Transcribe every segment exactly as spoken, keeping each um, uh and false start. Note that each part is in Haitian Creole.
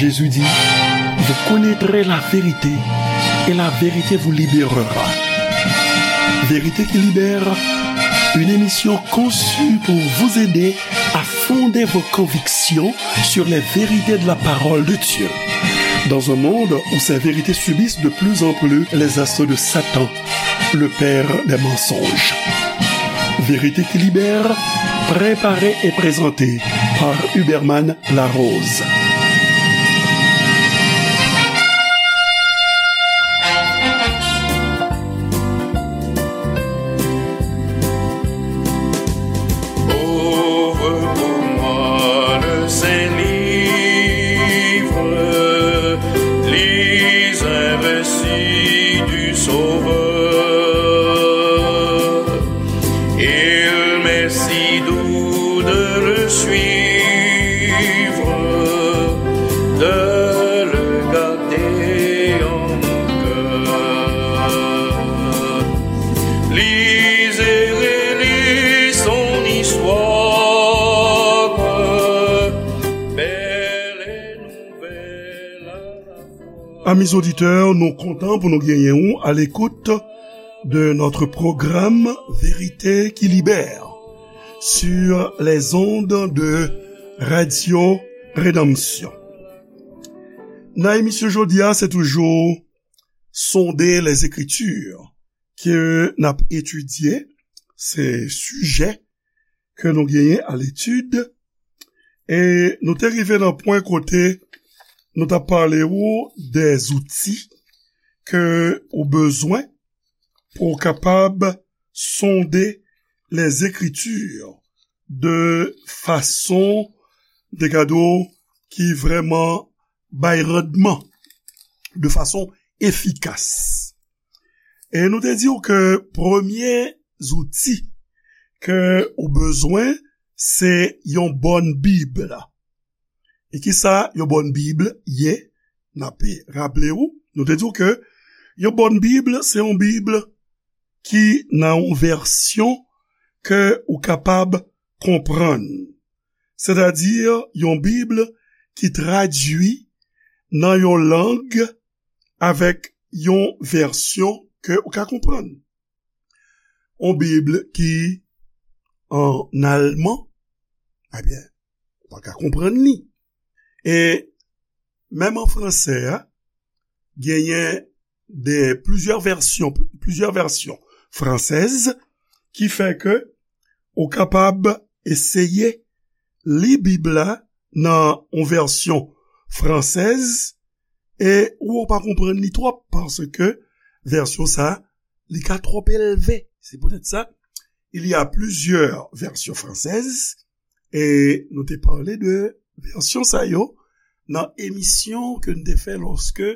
Jésus dit, vous connaîtrez la vérité et la vérité vous libérera. Vérité qui libère, une émission conçue pour vous aider à fonder vos convictions sur les vérités de la parole de Dieu. Dans un monde où ces vérités subissent de plus en plus les assauts de Satan, le père des mensonges. Vérité qui libère, préparée et présentée par Huberman Larose. Ouvre pour moi le saint livre, lis un récit du Sauveur. Il m'est si doux de le suivre, de le garder en mon cœur. Lis et relis son histoire, belle et nouvelle à la fois. Amis auditeurs, nou kontan pou nou genyen ou à l'écoute de notre programme Vérité qui libère sur les ondes de Radio Rédemption. Nan emisyon jodi a, se toujou Sonder les Écritures ke n ap etidye, se sijè ke nou genyen à l'étude, e nou te rive nan pwen kote nou t ap pale ou des outils ke ou bezwen pou w kapab sonde les Écritures de fason, de gade w, ki vrèman bay randman, de fason efikas. E nou te di w ke premye zouti ke ou bezwen, se yon bòn Bib. E kisa yon bòn Bib ye? N ape raple w, nou te di w ke yon bòn Bib, se yon Bib ki nan yon vèsyon ke ou kapab konprann. Sètadi, yon Bib ki tradui nan yon lang avèk yon vèsyon ke ou ka konprann. Yon Bib ki ann alman, ebyen, ou pa ka konprann li. E menm an fransè a, genyen de, plizyè vèsyon, plizyè vèsyon fransèz ki fè ke ou kapab eseye li Bib la nan yon vèsyon fransèz e ou pa konprann li twòp paske vèsyon sa, li ka twòp elve. Se poutèt sa, il y a plusieurs versions françaises, e nou te pale de vèsyon sa yo nan emisyon ke n te fè lòske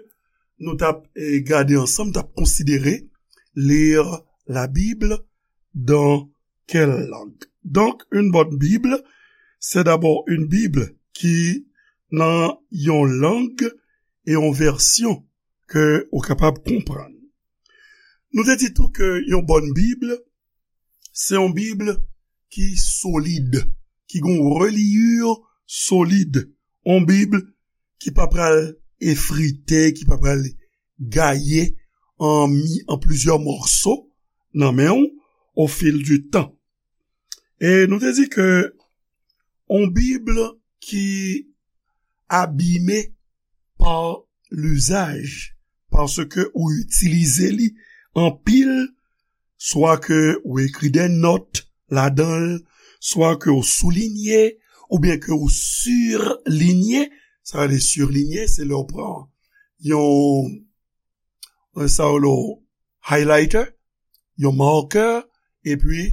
nou t ap, eh, gade ansanm, t ap konsidere lire la Bible dans quelle langue. Donc, une bonne Bible, c'est d'abord une Bible qui nan yon lang e yon vèsyon ke ou kapab konprann. Nou te di tou ke yon bòn Bib, se yon Bib ki solid, ki gen yon reliyi solid, yon Bib ki pa pral efrite, ki pa pral gaye an mi, an plizyè mòso nan men w au fil du temps. E nou te di ke yon Bib ki abime pa lizaj, paske ou itilize li anpil, swa ke ou ekri de nòt ladan l, swa ke ou soulinye, oubyen ke ou silinye. Sa vle di silinye, se lè ou pran yon, sa yo rele highlighter, yon marker, epi,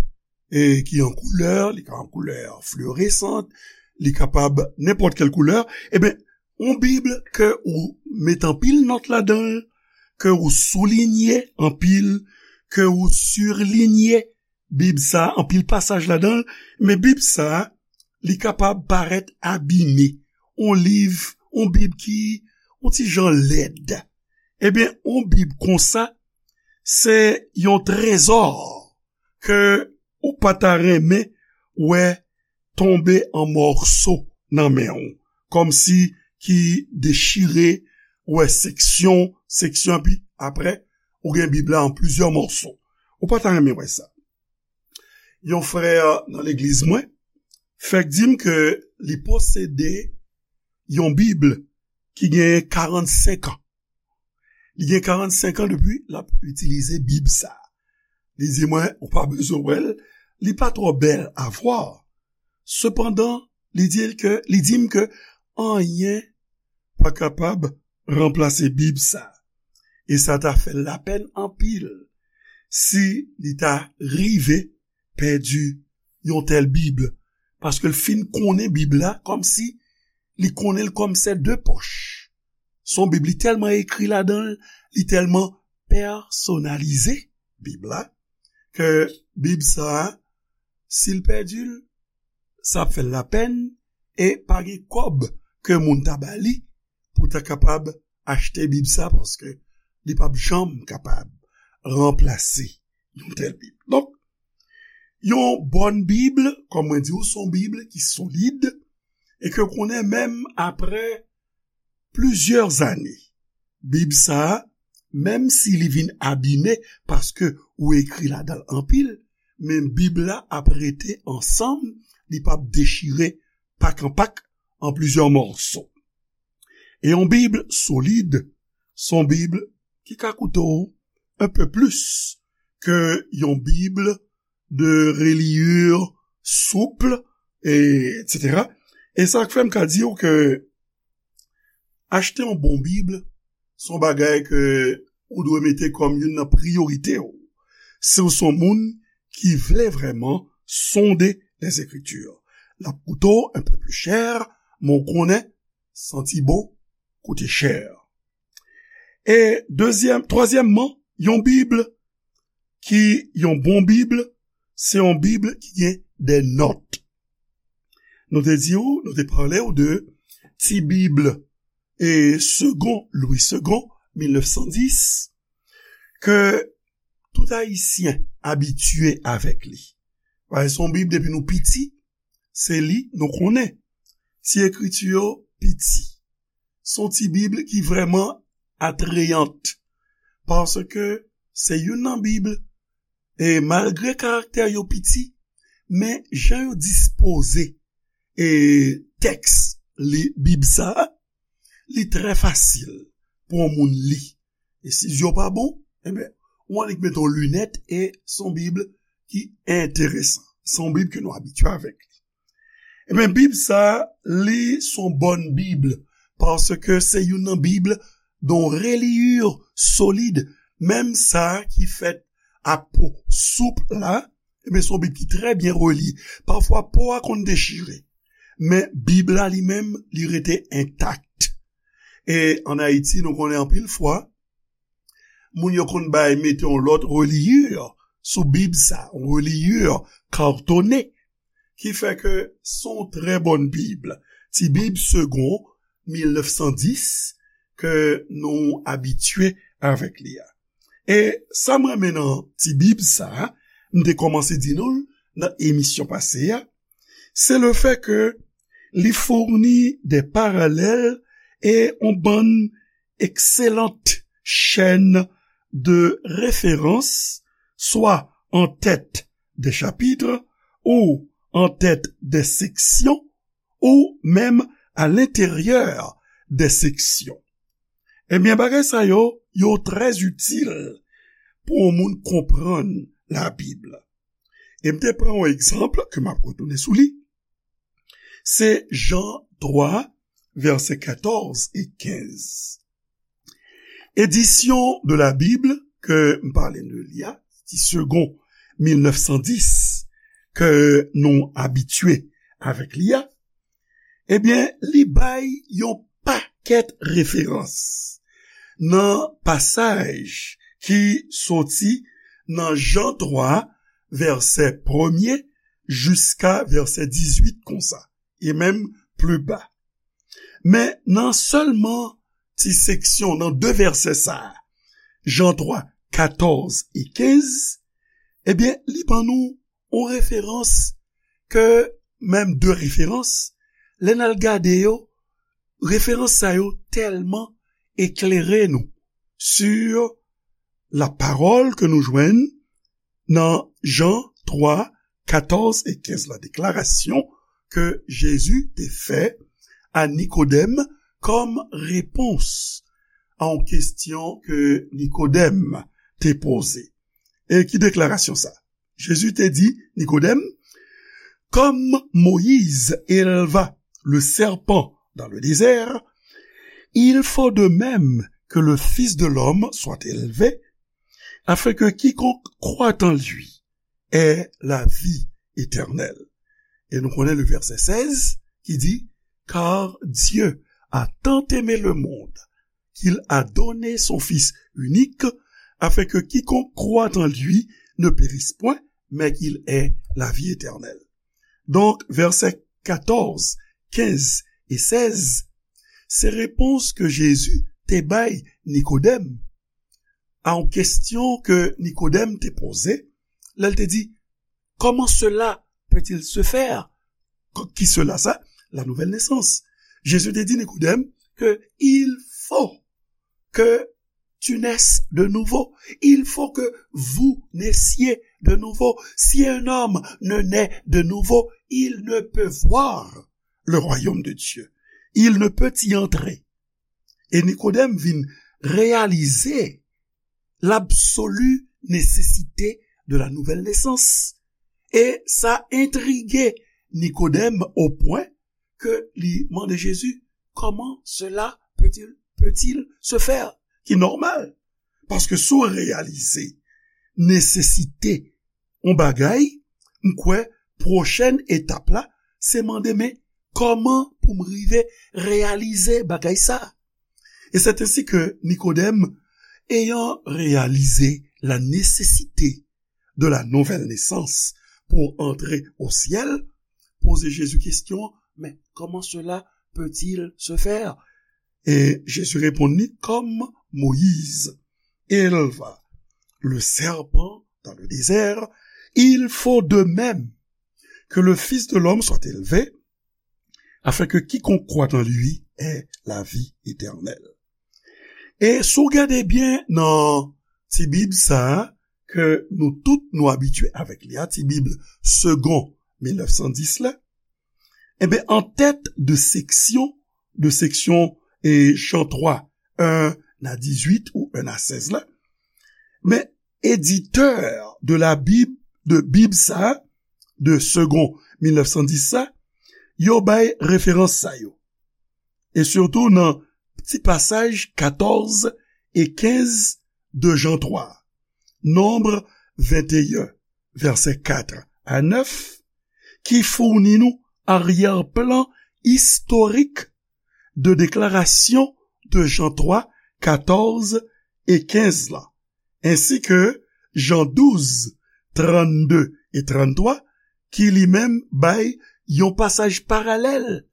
e ki an koulè, li ka an koulè fluorescente, li kapab nenpòt kèl koulè. Ebyen, yon Bib ke ou met anpil nòt ladan l, ke ou soulinye anpil, ke ou silinye Bib sa, anpil pasaj ladan l, men Bib sa, li kapab parèt abime. Yon liv, yon Bib ki, yon ti jan lèd. Ebyen, yon Bib konsa, se yon trezò ke ou pa ta renmen wè tonbe an mòso nan men w, kòmsi ki dechire, ou wè seksyon, seksyon, epi apre, ou gen Bib la an plizyè mòso. Ou pa ta renmen wè sa. Yon frè nan legliz mwen fèk di m ke li posede yon Bib ki gen karannsenk an. Li gen karannsenk an depi l ap itilize Bib sa a. Li di mwen, ou pa bezwen wè l, li pa twò bèl a vwa. Sepandan, li di l ke, li di m ke anyen pa kapab ranplase Bib sa a. E sa ta fè l lapèn anpil si li ta rive pèdi yon tèl Bib, paske l fin konnen Bib la kòmsi li konnen l kòm se de pòch. Se yon Bib, li tèlman ekri ladan l, li tèlman pèsonalize Bib la, ke Bib sa a, si l pèdi l, sa ap fè l lapèn, e pa gen kòb ke moun ta ba li pou ta kapab achte Bib sa, paske li p ap janm kapab ranplase yon tèl Bib. Donk, yon bòn Bib, kòm mwen di w, se yon Bib ki solid, e ke w konnen menm apre plizyè zane, Bib sa a, menm si li vin abime paske ou ekri ladan l anpil, men Bib la ap rete ansanm, li p ap dechire pak an pak an plizyè mòso. E yon Bib solid, se yon Bib ki ka koute w un peu plus ke yon Bib de reliure souple, e, et cetera. E sa k fè m ka di w ke achte yon bon Bib, se yon bagay ke ou dwe mete kòm youn nan priyorite w. Si w se yon moun ki vle vrèman sonde les Écritures, l ap koute w un peu plus cher, men w konnen santi bon koute chè. E dezyèm, twazyèmman, yon Bib ki, yon bon Bib, se yon Bib ki gen de nòt. Nou te di w, nou te pale w de ti Bib e Segond, Louis Segond, mil nèf san dis, ke tout Ayisyen abitye avèk li. Paske se yon Bib depi nou piti, se li nou konnen. Ti ekriti yo piti. Se yon ti Bib ki vrèman atrayant, paske se youn nan Bib, e malgre karaktè yo piti, men jan yo dispoze e tèks li, Bib sa a, li trè fasil pou yon moun li. E si zye w pa bon, enben, ou annik mete yon linèt e se yon Bib ki enteresan. Se yon Bib ke nou abitye avèk li. Enben, Bib sa a, li se yon bòn Bib, paske se youn nan Bib de reliure solid, menm sa ki fèt a po soup la, enben, se yon Bib ki trè byen reliye. Pafwa, po a konn dechire, men Bib la li menm, li rete entak. E ann Ayiti, nou konnen anpil fwa, moun yo konn bay mete yon lòt reliure sou Bib sa, yon reliure katone, ki fè ke se yon trè bòn Bib. Ti Bib Segond, mil nèf san dis, ke nou abitye avèk li a. E sa m renmen nan ti Bib sa a, m te kòmanse di nou l nan emisyon pase a, se le fè ke li founi de paralèl e yon bann excellentes chaînes de référence, soit en tête des chapitres, ou en tête des sections, ou menm à l'intérieur des sections. Ebyen, bagay sa yo, yo trè itil pou yon moun konprann Labib. E m te pran yon egzanp ke m ap retounen sou li. Se Jan twa, vèsè katòz e kenz. Édition de la Bible ke m pale de li a, ti Segond mil nèf san dis, ke nou abitye avèk li a, ebyen, li bay yon pakèt referans nan pasaj ki soti nan Jan twa, vèsè premye, jiska vèsè dizuit konsa, e menm pli ba. Men nan sèlman ti seksyon, nan de vèsè sa a, Jan twa, katòz e kenz, ebyen, li ban nou yon referans ke, menm de referans, lè n al gade yo, Referans sa yo tèlman eklere nou sur la pawòl ke nou jwenn nan Jan twa, katòz e kenz la, deklarasyon ke Jezi te fè a Nikodèm kòm repons a yon kesyon ke Nikodèm te poze. E ki deklarasyon sa? Jezi te di Nikodèm, comme Moïse éleva le serpent dans le désert, il faut de même que le Fils de l'homme soit élevé, afin que quiconque croit en lui ait la vie éternelle. E nou konnen le verset seize ki di, car Dieu a tant aimé le monde qu'il a donné son Fils unique, afin que quiconque croit en lui ne périsse point, mais qu'il ait la vie éternelle. Donk, vèsè katòz, kenz e sèz, se repons ke Jezi te bay Nikodèm a yon kesyon ke Nikodèm te poze, lè l te di, comment cela peut-il se faire? Ki cela sa? La nouvelle naissance. Jezi te di Nikodèm ke il faut que tu naisses de nouveau. Il faut que vous naissiez de nouveau. Si un homme ne naît de nouveau, il ne peut voir le royaume de Dieu. Il ne peut y entrer. E Nikodèm vin reyalize l'absolue nécessité de la nouvelle naissance. E sa entrige Nikodèm o pwen ke li mande Jezi, comment cela peut-il, peut-il se faire? Ki nòmal. Paske si w reyalize nesesite yon bagay, m kwè pwochèn etap la, se mande, men kòman pou m rive reyalize bagay sa? Et c'est ainsi que Nikodèm, ayant réalisé la nécessité de la nouvelle naissance pour entrer au ciel, poze Jezi kesyon, mais comment cela peut-il se faire? E Jezi reponn li, comme Moïse éleva le serpent dans le désert, il faut de même que le Fils de l'homme soit élevé, afin que quiconque croit en lui ait la vie éternelle. E si w gade byen nan ti bib sa a, ke nou tout nou abitye avèk li a, ti bib Segond mil nèf san dis la, enben, an tèt de seksyon, de seksyon, e, Jan twa, en a dizuit ou en a sèz la, men editè de la Bible, de Bib sa, de Segond mil nèf san dis sa, yo bay referans sa yo. E sitou nan ti pasaj katòz e kenz de Jan twa, Nonb venteyen, vèsè kat a nèf, ki founi nou aryè-plan istorik de deklarasyon de Jan twa, katòz e kenz la, ensi ke Jan douz, trannde e tranntwa, ki li menm bay yon pasaj paralèl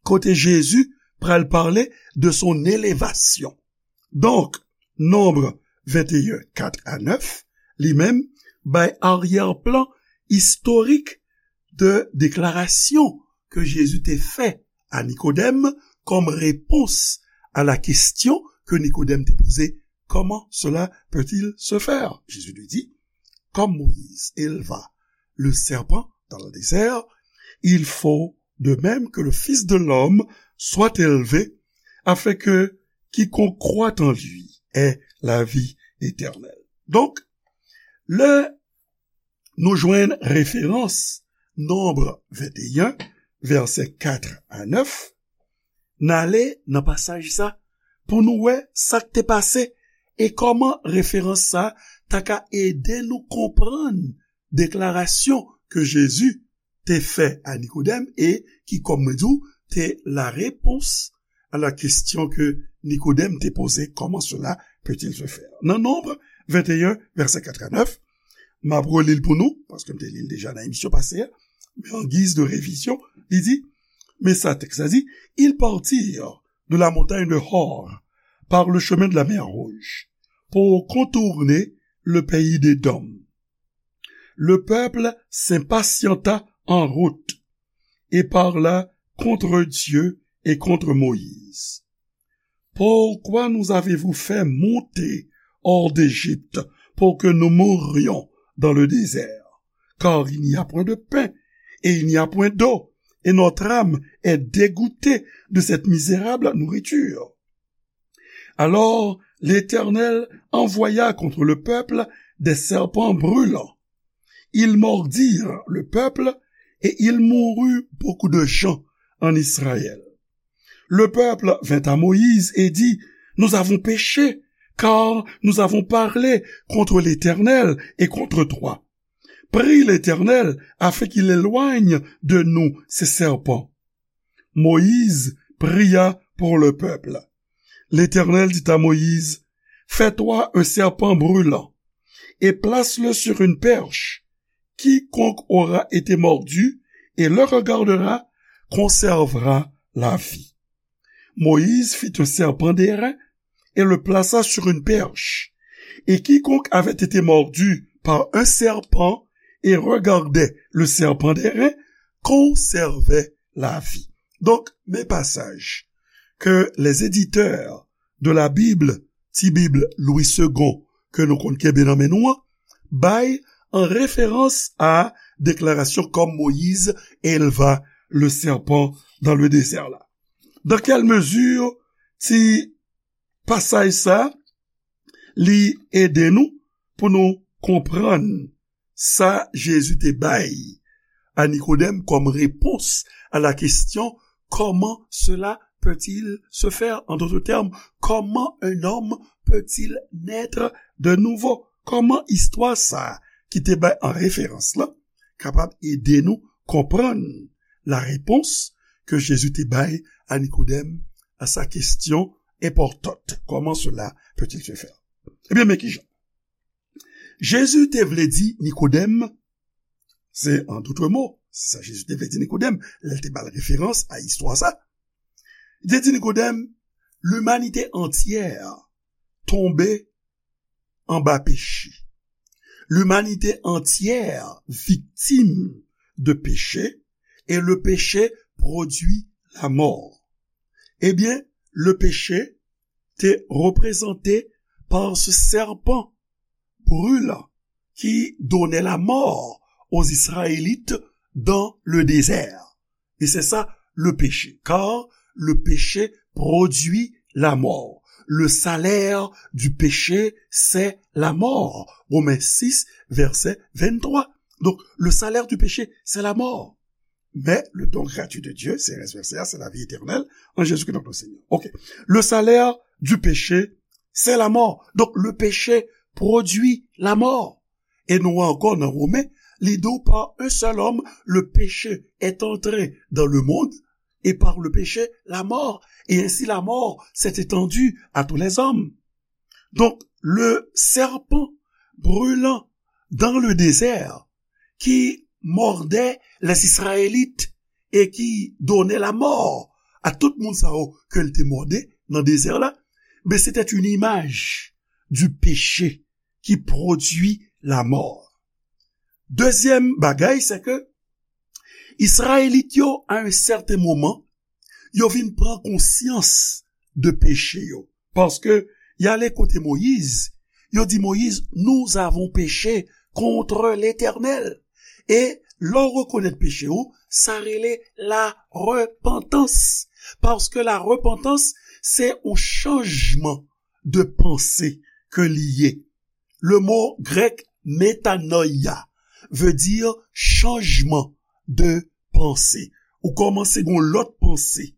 kote Jezi pral pale de son elevasyon. Donk, Nonb venteyen, kat a nèf, li menm bay aryè-plan istorik de deklarasyon ke Jezi te fè a Nikodèm kòm repons a la kesyon ke Nikodèm te poze, comment cela peut-il se faire? Jésus lui dit, comme Moïse éleva le serpent dans le désert, il faut de même que le Fils de l'homme soit élevé, afin que quiconque croit en lui ait la vie éternelle. Donk, lè nou jwenn referans Nonb venteyen, vèsè kat a nèf, n ale nan pasaj sa pou nou wè sa k te pase e kòman referans sa ta ka ede nou konprann deklarasyon ke Jezi te fè a Nikodèm e ki, kòm mwen di w, te la réponse à la question que Nikodèm te poze, comment cela peut-il se faire? Nan Nonb venteyen, vèsè kat a nèf, m ap reli l pou nou, paske m te li l deja nan emisyon pase a, men an giz de revizyon, li di, men sa tèks la di, ils partirent de la montagne de Hor par le chemin de la mer Rouge pour contourner le pays d'Édom. Le peuple s'impatienta en route et parla contre Dieu et contre Moïse. Pourquoi nous avez-vous fait monter hors d'Égypte pour que nous mourions dans le désert ? Car il n'y a point de pain et il n'y a point d'eau, et notre âme est dégoûtée de cette misérable nourriture. Alors l'Éternel envoya contre le peuple des serpents brûlants. Ils mordirent le peuple et il mourut beaucoup de gens en Israël. Le peuple vint à Moïse et dit : « Nous avons péché, car nous avons parlé contre l'Éternel et contre toi. Prie l'Éternel afin qu'il éloigne de nous ces serpents. » Moïse pria pour le peuple. L'Éternel dit à Moïse : « Fais-toi un serpent brûlant et place-le sur une perche. Quiconque aura été mordu et le regardera conservera la vie. » Moïse fit un serpent d'airain et le plaça sur une perche. Et quiconque avait été mordu par un serpent et regardait le serpent d'airain conservait la vie. Donk, men pasaj ke les éditeurs de la Bible, Ti Bib Louis Segond, ke nou konn kenbe nan men nou an, bay an referans a deklarasyon comme Moïse éleva le serpent dans le désert la. Dans quelle mesure ti pasaj sa, li ede nou pou nou konprann sa Jezi te bay a Nikodèm comme réponse à la question : comment cela peut-il se faire ? En d'autres termes, comment un homme peut-il naître de nouveau ? Kòman istwa sa a ki te bay an referans la kapab ede nou konprann la réponse ke Jezi te bay a Nikodèm à sa question importante : comment cela peut-il se faire ? Ebyen, men kijan. Jezi te vle di Nikodèm, se an dout mo, se sa Jezi te vle di Nikodèm, lè l te ba l referans a istwa sa. Li te di Nikodèm, limanite antyè tonbe anba peche. Limanite antyè viktim de peche, e le peche pwodui lamò. Ebyen, le peche te reprezante par ce serpent brûlant qui donnait la mort aux Israélites dans le désert. Et c'est ça le péché, car le péché produit la mort. Le salaire du péché, c'est la mort. Romains six, verset vingt-trois. Donc, le salaire du péché, c'est la mort. Mais le don gratuit de Dieu, se rès vèsè a, se lavi etènèl an Jezikri, notre Seigneur. Ok. Le salaire du péché, c'est la mort. Donc, le péché produit la mort. E nou wè ankò nan Women, li di w, par un seul homme, le péché est entré dans le monde, et par le péché, la mort. Et ainsi, la mort s'est étendue à tous les hommes. Donc, le serpent brûlant dans le désert qui mordait les Israélites et qui donnait la mort à tout moun sa yo ke l te mòde nan dezè la, ben, c'était une image du péché qui produit la mort. Dezyèm bagay, se ke Izrayelit yo, à un certain moment, yo vin pran konsyans de peche yo. Paske y ale kote Moyiz, yo di Moyiz, nous avons péché contre l'Éternel. E lè w rekonèt peche w, sa rele la repantans. Paske la repantans, se yon chanjman de panse ke li ye. Le mot grec metanoia veut dire chanjman de panse. Ou kòmanse gen yon lòt panse,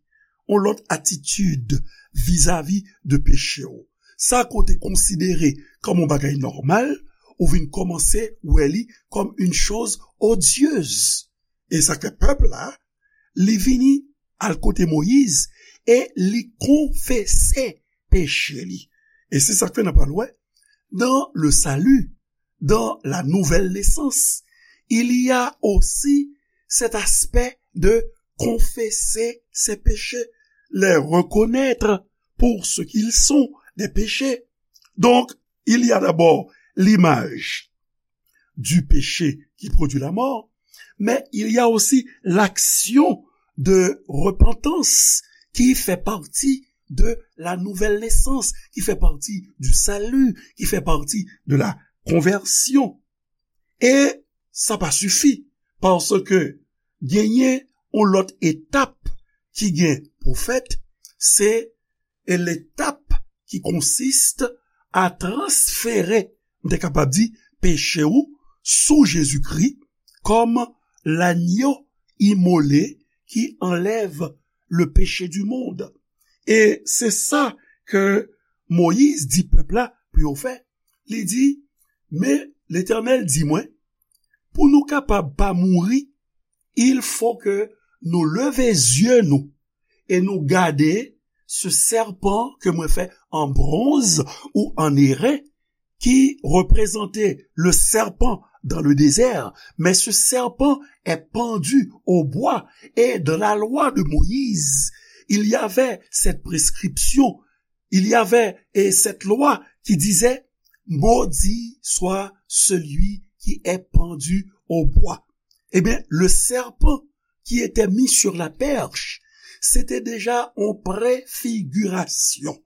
yon lòt atitid vizavi de peche w. Sa ke w te konsidere kòm yon bagay nòmal, ou vin kòmanse wè li kòm une chose odieuse. E sa ke pèp la, li vini al kote Moyiz e li konfese peche li. E se sa k fè n ap pral wè, dans le salut, dans la nouvelle naissance, il y a aussi cet aspect de confesser ses péchés, les reconnaître pour ce qu'ils sont, des péchés. Donc, il y a d'abord l'image du péché qui produit la mort, mais il y a aussi l'action de repentance ki fè pati de la nouvelle naissance, ki fè pati du salut, ki fè pati de la conversion. E sa pa sifi, paske genyen yon lòt etap ki gen pou fèt, se e letap ki konsiste a transfere, m te kapab di, peche ou sou Jezikri kòm lanyo imole ki anlèv le péché du monde. E se sa ke Moyiz di pèp la pou yo fè. Li di, men Letènèl di mwen, pou nou kapab pa mouri, il faut que nou leve zye nou e nou gade se sèpan ke mwen fè an bronz ou an eren ki reprezante le serpent dans le désert, mais ce serpent est pendu au bois. Et dans la loi de Moïse, il y avait cette prescription, il y avait et cette loi qui disait, maudit soit celui qui est pendu au bois. Eh bien, le serpent qui était mis sur la perche, c'était déjà une préfiguration,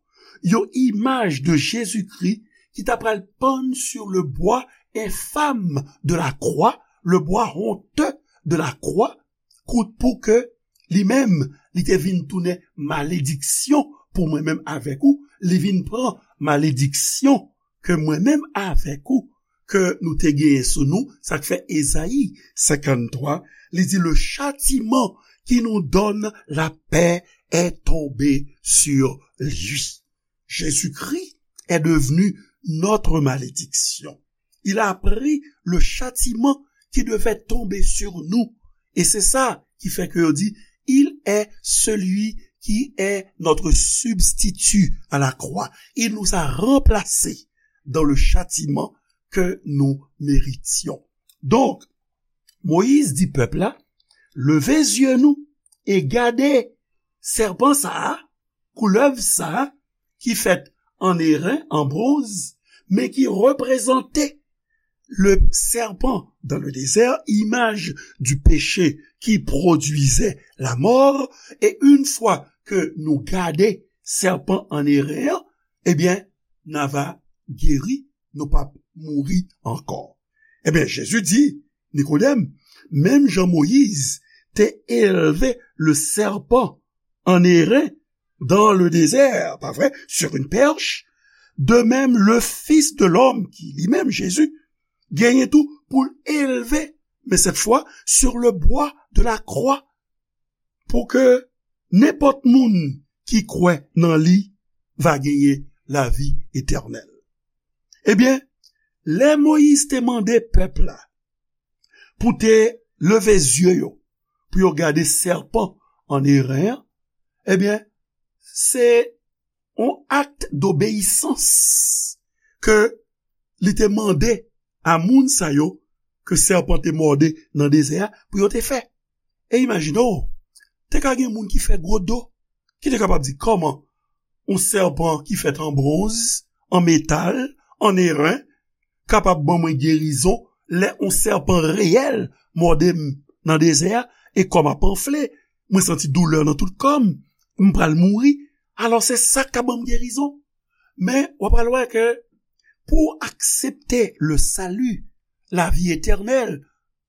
une image de Jésus-Christ ki ta pral pann sur le bois infâme de la croix, le bois honteux de la croix, kout pou ke li menm, li te vin tounen malediksyon pou mwen menm avèk ou, li vin pran malediksyon ke mwen menm avèk ou ke nou te genyen sou nou, sa k fè Ezayi senkanntwa, li di, le châtiment qui nous donne la paix est tombé sur lui. Jésus-Christ est devenu notre malédiction. Il a pris le châtiment qui devait tomber sur nous. Et c'est ça qui fait que yo di, il est celui qui est notre substitut à la croix. Il nous a remplacés dans le châtiment que nous méritions. Donk, Moyiz di pèp la, leve zye nou e gade sèpan sa a, koulèv sa a, ki fèt an eren, an bronz, men ki reprezante le serpent dans le désert, image du péché qui produisait la mort, et une fois que nou gade sèpan an eren an, ebyen, n a va geri, nou p ap mouri ankò. Ebyen, Jezi di, Nikodèm, menm jan Moyiz te elve le serpent en airain dans le désert, pa vre, sur une perche, de même le Fils de l'homme, ki li menm Jezi, genyen tou pou l elve, men cette fois sur le bois de la croix, pou ke nenpòt moun ki kwè nan li va genyen lavi etènèl. Ebyen, lè Moyiz te mande pèp la pou te leve zye yo, pou yo gade sèpan an eren an, ebyen, se yon akt dobeyisans ke li te mande a moun sa yo ke sèpan te mòde nan dezè a pou yo te fè. E imajine w, te ka gen moun ki fè gwo do, ki te kapab di, kòman yon sèpan ki fèt an bwonz, an metal, an eren, kapab ban mwen gerizon lè yon sèpan reyèl mòde m nan dezè a, e kò m ap anfle, mwen santi doulè nan tout kò m, m pral mouri. Alò, se sa k ka ban m gerizon. Men, w ap pral wè ke pou w aksepte le salut, lavi etènèl,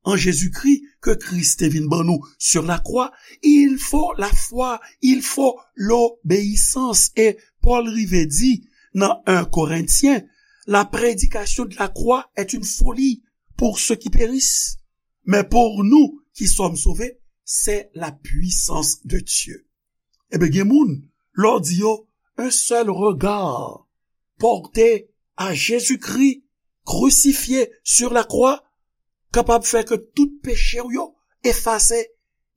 an Jezikri ke Kris te vin ban nou sur la croix, il faut la foi, il faut l'obéissance. E Pòl rive di nan en Korentyen, la prédication de la croix est une folie pour ceux qui périssent, mais pour nous qui sommes sauvés, c'est la puissance de Dieu. Ebyen, gen moun, lè w di yo, un seul regard porté à Jésus-Christ crucifié sur la croix kapab fè ke tout peche w yo efase,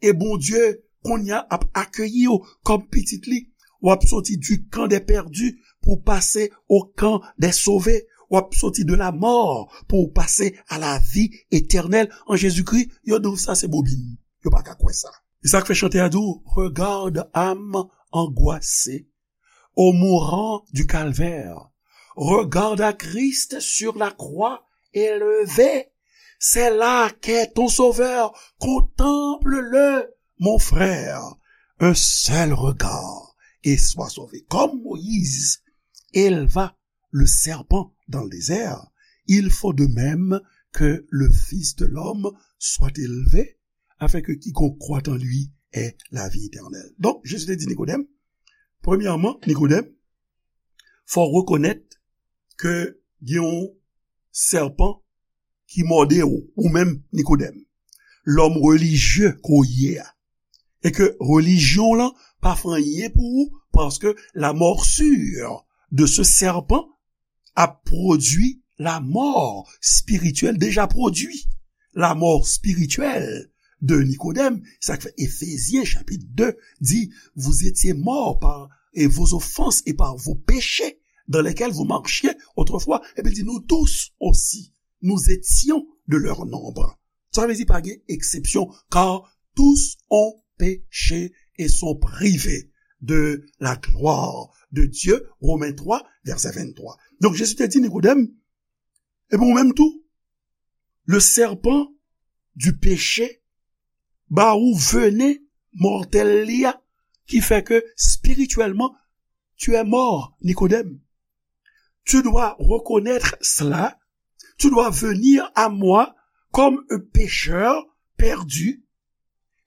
e Bondye kounye a ap akeyi w kòm pitit li. W ap soti du camp des perdus pou w pase au camp des sauvés. W ap soti de la mort pou w pase à la vie éternelle en Jésus-Christ. Yo di w sa se bobin. Yo pa ka kwè sa. E sa k fè chantè a di w, regarde, âme angoissée, au mourant du calvaire. Regarde à Christ sur la croix élevé. C'est là qu'est ton sauveur. Contemple-le, mon frère. un seul regard et sois sauvé. Comme Moïse éleva le serpent dans le désert, il faut de même que le Fils de l'homme soit élevé, afin que quiconque croit en lui ait la vie éternelle. Donk, Jezi te di Nikodèm, premyèman, Nikodèm, fò w rekonèt ke gen yon sèpan ki mòde w, ou menm, Nikodèm, lòm relijye ke w ye a. E ke relijyon w lan pa fè anyen pou ou, paske la morsure de ce serpent a produit la mort spirituelle, déjà produit la mort spirituelle de Nikodèm. Sa k fè Efezyen chapit de di, vous étiez morts par et vos offenses et par vos péchés dans lesquels vous marchiez autrefois. Epi l di, nous tous aussi, nous étions de leur nombre. Sa vle di pa gen eksepsyon, car tous ont péché et sont privés de la gloire de Dieu, Romains trois, verset vingt-trois. Donk, Jezi te di Nikodèm, epi ou menm tou, le serpent du péché ba ou vene mòtèl li a, ki fè ke spirityèlman, tu es mort, Nikodèm. Tu dois reconnaître cela. Tu dois venir à moi comme un pécheur perdu.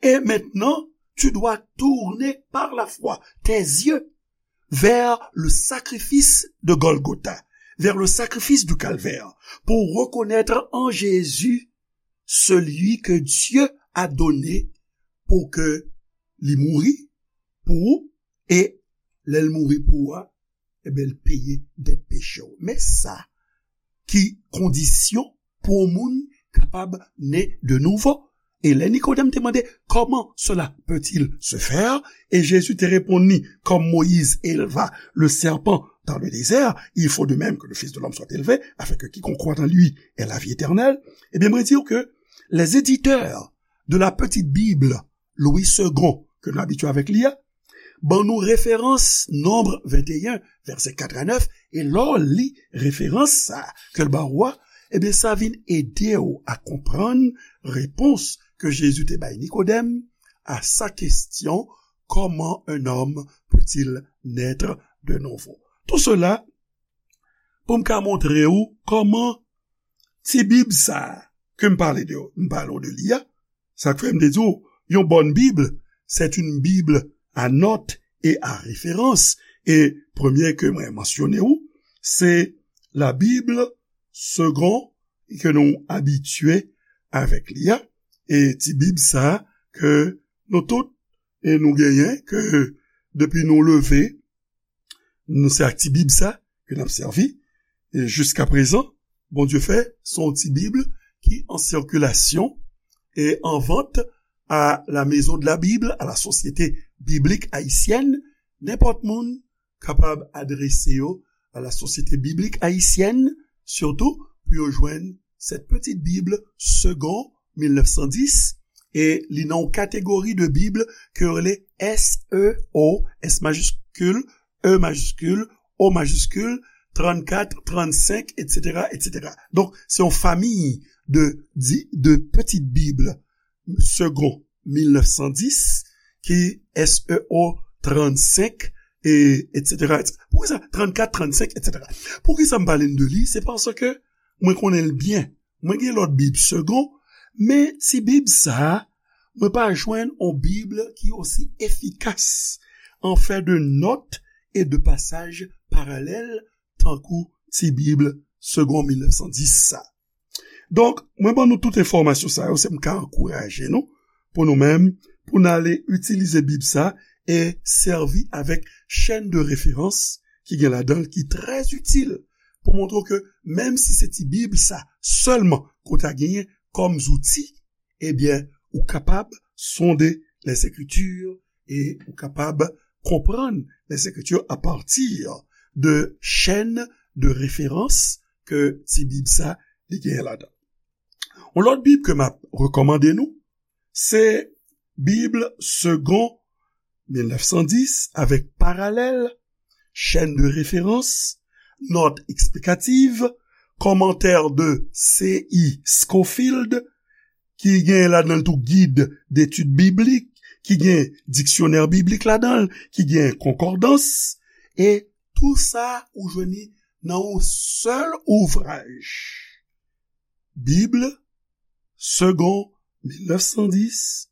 Et maintenant, tu dois tourner par la foi tes yeux vers le sacrifice de Golgotha, vers le sacrifice du calvaire, pour reconnaître en Jésus celui que Dieu a donné pour que li mouri pou ou, e lè l mouri pou ou a, ebyen, l peye dèt peche w. Men sa ki kondisyon pou yon moun kapab ne de nouvo. E lè Nikodèm te mande, comment cela peut-il se faire? E Jezi te reponn li, comme Moïse éleva le serpent dans le désert, il faut de même que le Fils de l'homme soit élevé, afin que quiconque croit en lui ait la vie éternelle. Ebyen, mwen di w ke les éditeurs de la petite Bible Louis Segond, ke nou abitye avèk li a, ban nou referans Nonb venteyen, vèsè kat a nèf, e lè w li referans sa a ke l ba ou a, ebyen, sa vin ede w a konprann repons ke Jezi te bay Nikodèm a sa question, comment un homme peut-il naître de nouveau? Tout cela pou m ka montre w kòman ti Bib sa a ke m pale de, m pale w de li a, sa k fè m te di w, yon bòn Bib, c'est une Bible à notes et à références. E premye ke mwen mansyone w, se la Bible Segond ke nou abitye avèk li a. E ti Bib sa a ke nou tout, e nou genyen, ke depi nou leve, nou se ak ti Bib sa ke n ap sèvi. E jiska prezan, Bondye fè, se yon ti Bib ki an sikilasyon e an vant à la Maison de la Bible, à la Société Biblique Haïtienne. Nenpòt moun kapab adrese yo à la Société Biblique Haïtienne, sitou pou yo jwenn Cette Petite Bible Segond mil nèf san dis, e li nan yon kategori de Bib ke yo rele S E O, S majiskil, E majiskil, O majiskil, trannkat, trannsenk, etsetera, etsetera. Donk, se yon famiy de, di- de pitit Bib Segond mil nèf san dis, ki S E O trannsenk, e etsetera, etsetera. Poukisa trannkat, trannsenk, etsetera? Poukisa m pale n de li? Se paske mwen konnen l byen. Mwen gen lòt Bib Segond, men ti Bib sa a, mwen pa jwenn yon Bib ki osi efikas an fè de nòt e de pasaj paralèl tankou ti Bib Segond mil nèf san dis sa. Donk, mwen ban nou tout enfòmasyon sa yo, se m ka ankouraje nou, pou nou menm, pou n ale itilize Bib sa e sèvi avèk chèn de referans ki gen ladan l, ki trè itil, pou montre w ke menm si se ti Bib sa sèlman ke w ta genyen kòm zouti, ebyen, ou kapab sonde Lèzekriti e ou kapab konprann Lèzekriti apati de chèn de referans ke ti Bib sa li genyen ladan. Yon lòt Bib ke m ap rekòmande nou, se Bib Segond mil nèf san dis avèk paralèl, chèn de referans, nòt eksplikativ, kòmantè de C I Scofield, ki genyen ladan l tou Guide d'études bibliques, ki gen diksyonè biblik ladan l, ki gen konkòdans, e tou sa ou jwenn li nan yon sèl ouvraj. Bib, Segond mil nèf san dis,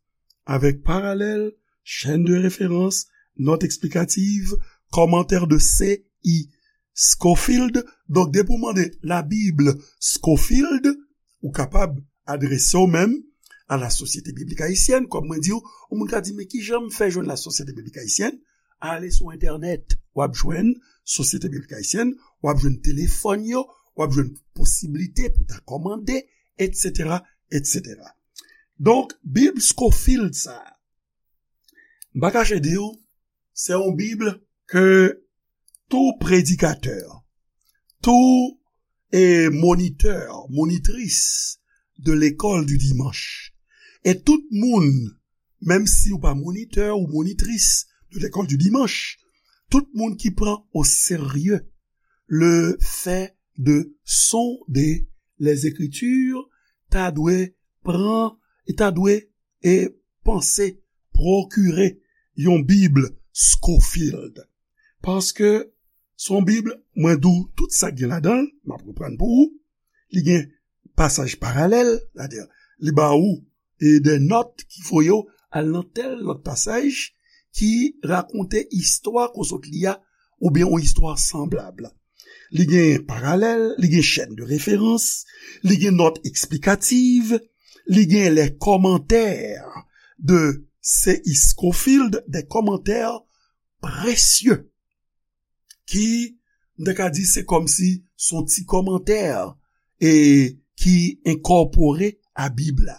avèk paralèl, chaîne de référence, note explicative, commentaire de C I Scofield. Donk, depi w mande la Bible Scofield, ou kapab adrese w menm a la Société Biblique Haïtienne. Kòm mwen di w, yon moun ka di, "Men ki jan m fè jwenn la Société Biblique Haïtienne?" Ale sou entènèt, w ap jwenn Société Biblique Haïtienne, w ap jwenn telefòn yo, w ap jwenn posiblite pou ta kòmande, et cetera, et cetera. Donk, Bib Scofield sa a, m pa kache di w, se yon Bib ke tou predikatè, tou e monitè, monitris de l'école du dimanche, e tout moun, menm si ou pa monitè ou monitris de l'école du dimanche, tout moun ki pran o serye le fait de sonder les Écritures ta dwe pran, e ta dwe e panse pwokire yon Bib Scofield. Paske se yon Bib, mwen di w tout sa k gen ladan l, m ap reprann pou ou. Li gen pasaj paralèl, sètadi li ba ou e de nòt ki voye w al nan tèl lòt pasaj ki rakonte istwa ke w sot li a, oubyen yon istwa sanblab. Li gen paralèl, li gen chaîne de référence, li gen note explicative, li gen les commentaires de C I Scofield, des commentaires précieux, ki, m ta ka di, se kòmsi se yon ti kòmantè e ki enkòpore a Bib la.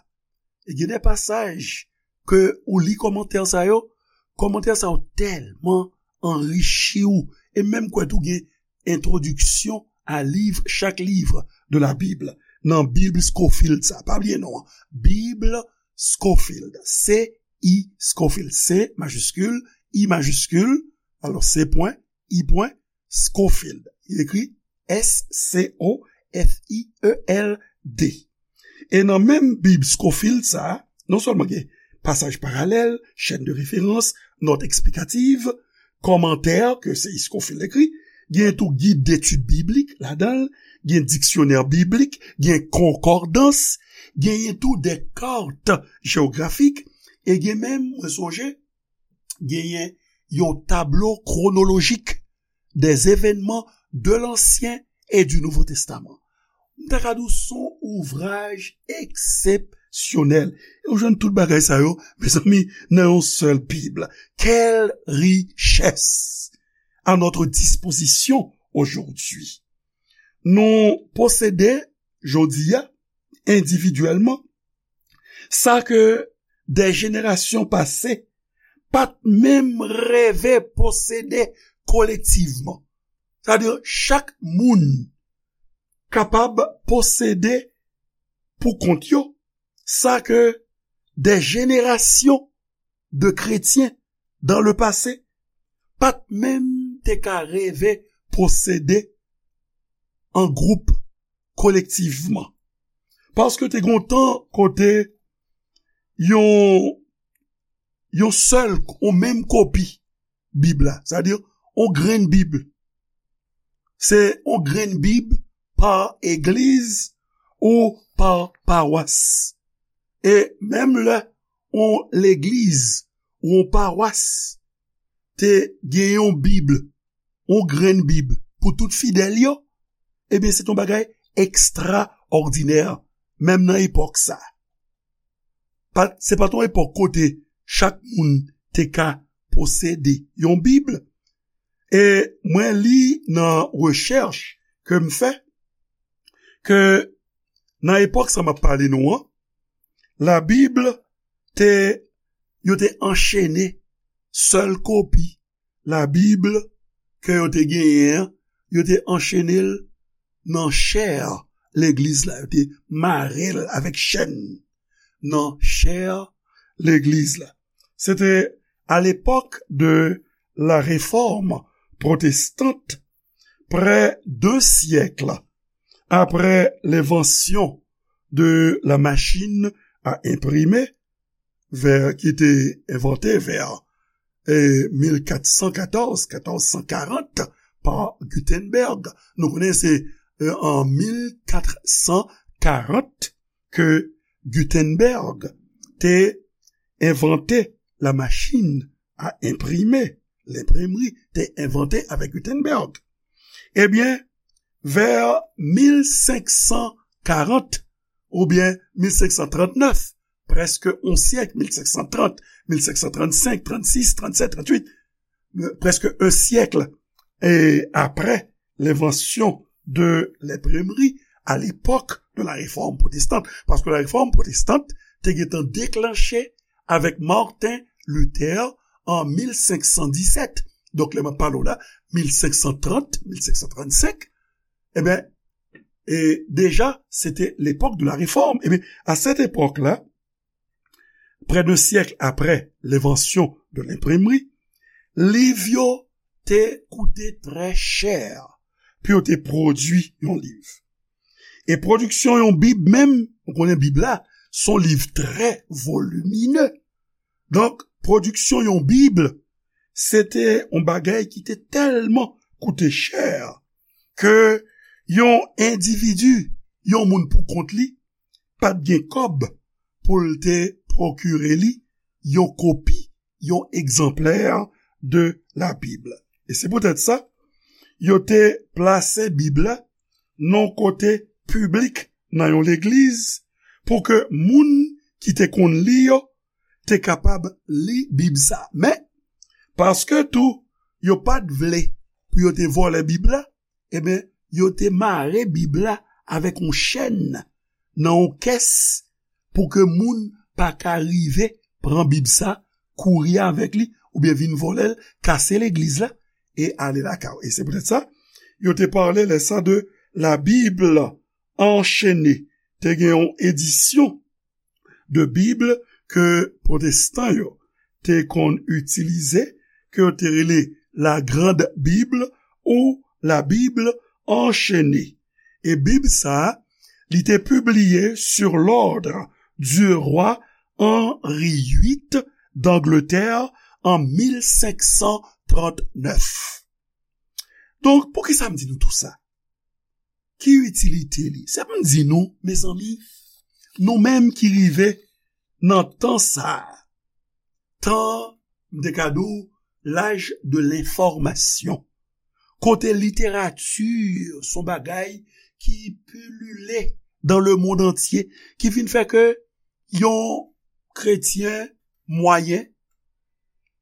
E gen de pasaj ke ou li kòmantè sa yo, kòmantè sa yo tèlman anrichi w, e menm kwè tou gen introduction à livre, chaque livre de la Bible, nan Bib Scofield sa. Pa bliye non an. Bib Scofield. C I Scofield. C majiskil, I majiskil, alò C pwen, I pwen, Scofield. Li ekri S C O F I E L D. E nan menm Bib Scofield sa a, non sèlman gen pasaj paralèl, chaîne de référence, note explicative, kòmantè ke C I Scofield ekri, gen tou gid detid biblik ladan l, gen diksyonè biblik, gen konkòdans, genyen tou de kart jewografik, e gen menm, mwen sonje, genyen yon tablo kwonolojik des événements de l'Ancien et du Nouveau Testament. M ta ka di w se yon ouvraj eksepsyonèl. E ou jwenn tout bagay sa yo, mezanmi, nan yon sèl Bib. Quelle richesse à notre disposition aujourd'hui. Nou posede, jodi a, endividyèlman, sa ke de jenerasyon pase pa t menm reve posede kolektivman. Sètadi, chak moun kapab posede pou kont yo sa ke de jenerasyon de kretyen dans le passé pa t menm te ka reve posede an gwoup, kolektivman. Paske te gen yon tan kote yon, yon sèl, yon menm kopi Bib la, sètadi yon grenn Bib. Se yon grenn Bib pa egliz ou pa pawas. E menm lè yon legliz ou yon pawas te gen yon Bib, yon grenn Bib pou tout fidèl yo, ebyen, se te yon bagay ekstraòdinè, menm nan epòk sa. Pa, se pa t yon epòk kote chak moun te ka posede yon Bib. E mwen li nan rechèch ke m fè, ke nan epòk sa m ap pale nou an, Labib te, yo te anchene sèl kopi Labib ke yo te genyen an, yo te anchene l nan chè legliz la, yo te mare l avèk chèn nan chè legliz la. Se te à l'époque de la Réforme protestante, près d'un siècle après l'invention de la machine à imprimer, vè, ki te envante vè, e, mil kat san katòz, katòz san karant, pa Gutenberg. Nou konnen se, e, an mil kat san karant ke Gutenberg te envante la machin a enprime, lenpremri, te envante avèk Gutenberg. Ebyen, vè mil senk san karant oubyen mil senk san trant nèf, prèske on syèk, mil senk san trant, mil senk san trannsenk, trannsis, trannsèt, trannuit, prèske on syèk, e, apre lenvansyon de lenpremri, à l'époque de la Réforme protestante, paske la Réforme protestante te gentan deklanche avèk Martin Luther an mil senk san disèt. Donk, lè m ap pale w la, mil senk san trant, mil senk san trannsenk, ebyen, e deja, se te l'époque de la Réforme. Ebyen, à cette époque-là, près d'un siècle après l'invention de l'imprimerie, liv yo te koute trè chè pou yo te pwodui yon liv. E pwodiksyon yon Bib menm, ou konnen Bib la, se yon liv trè volimine. Donk, pwodiksyon yon Bib, se te yon bagay ki te tèlman koute chè ke yon endividi, yon moun pou kont li, pa t gen kòb pou l te pwokire li yon kopi, yon egzanplè de Labib. E se poutèt sa, yo te plase Bib la nan yon kote piblik nan yon legliz pou ke moun ki te konn li yo te kapab li Bib sa. Men, paske tou, yo pa t vle pou yo te vòlè Bib la, ebyen, yo te mare Bib la avèk yon chèn nan yon kès pou ke moun pa ka rive pran Bib sa, kouri avèk li, oubyen vin vòlè l, kase legliz la, e ale lakay yo. E se poutèt sa, yo te pale lè sa de la Bible enchaînée. Te gen yon edisyon de Bib ke pwotestan yo te konn itilize, ke yo te rele La Grande Bible ou La Bible enchaînée. E Bib sa a, li te pibliye sur l'ordre du roi Henri huit d'Angleterre an mil senk san trant nèf. Donk, poukisa m di nou tou sa? Ki itilite li? Se pou m di nou, mezanmi, nou menm ki rive nan tan sa a, tan, m te ka di w, l'âge de l'information, kote literati se yon bagay ki pilile dans le monde entier, ki vin fè ke yon kretyen mwayen,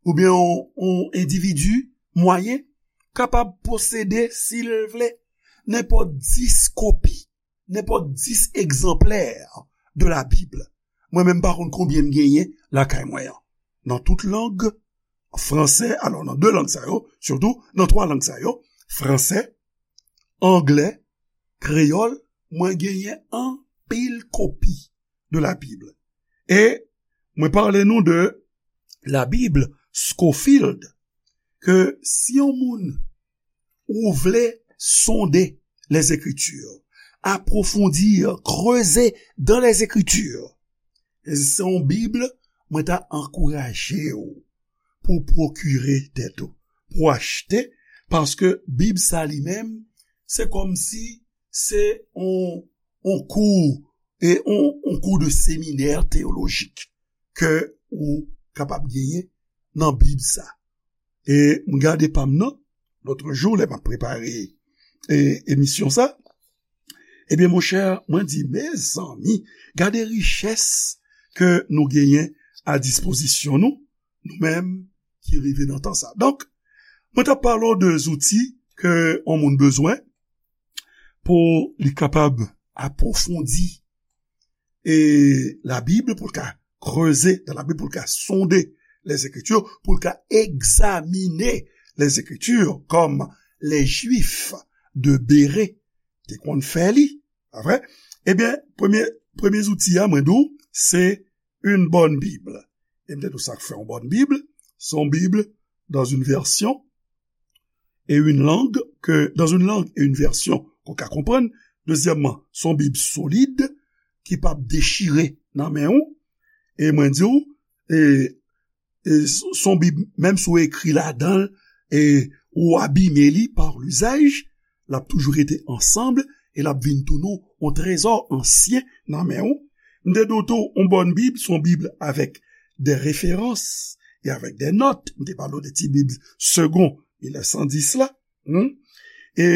oubyen yon, yon endividi mwayen, kapab posede, si l vle, nenpòt dis kopi, nenpòt dis egzanplè de la Bib. Mwen menm pa konn konbyen m genyen lakay mwen an. Nan tout lang, franse, alò, nan de lang sa yo, sitou nan twa lang sa yo, franse, anglè, kreyòl, mwen genyen anpil kopi de la Bible. E mwen pale nou de la Bible Scofield, ke si yon moun ou vle sonde les Écritures, approfondir, creuser dans les Écritures, e se yon Bib, mwen ta ankouraje w pou pwokire tèt ou, pou achte, paske Bib sa li menm, se kòmsi se yon, yon kou, e yon, yon kou de seminè teyolojik ke ou kapab genyen nan Bib sa. E m gade pa m nan, lòt jou, lè m ap prepare, e, emisyon sa, ebyen, monchè, mwen di, mezanmi, gade richès ke nou genyen a dispozisyon nou, nou menm ki rive nan tan sa. Donk, mwen t ap pale w de zouti ke yon moun bezwen pou li kapab apwofondi e la Bib, pou l ka kreze dan la Bib, pou l ka sonde les Écritures, pou l ka egzamine les Écritures, kòm les Juifs de Béré te konn fè li, pa vre? Ebyen, premye, premye zouti a, mwen di w, se une bonne Bible. E m te di w sa k fè yon bòn Bib, se yon Bib dans une version et une langue que, dans une langue et une version ke w ka konprann. Dezyèmman, se yon Bib solid ki p ap dechire nan men w. E mwen di w, e, e s-, s on Bib, menm si w ekri ladan l, e ou abime li pa lizaj, l ap toujou rete ansanm e l ap vin tounen yon trezò ansyen nan men w. M te di w tou, yon bòn Bib, s on Bib avèk de referans e avèk de nòt. M te pale w de ti Bib Segond mil nèf san dis la. Hmm? E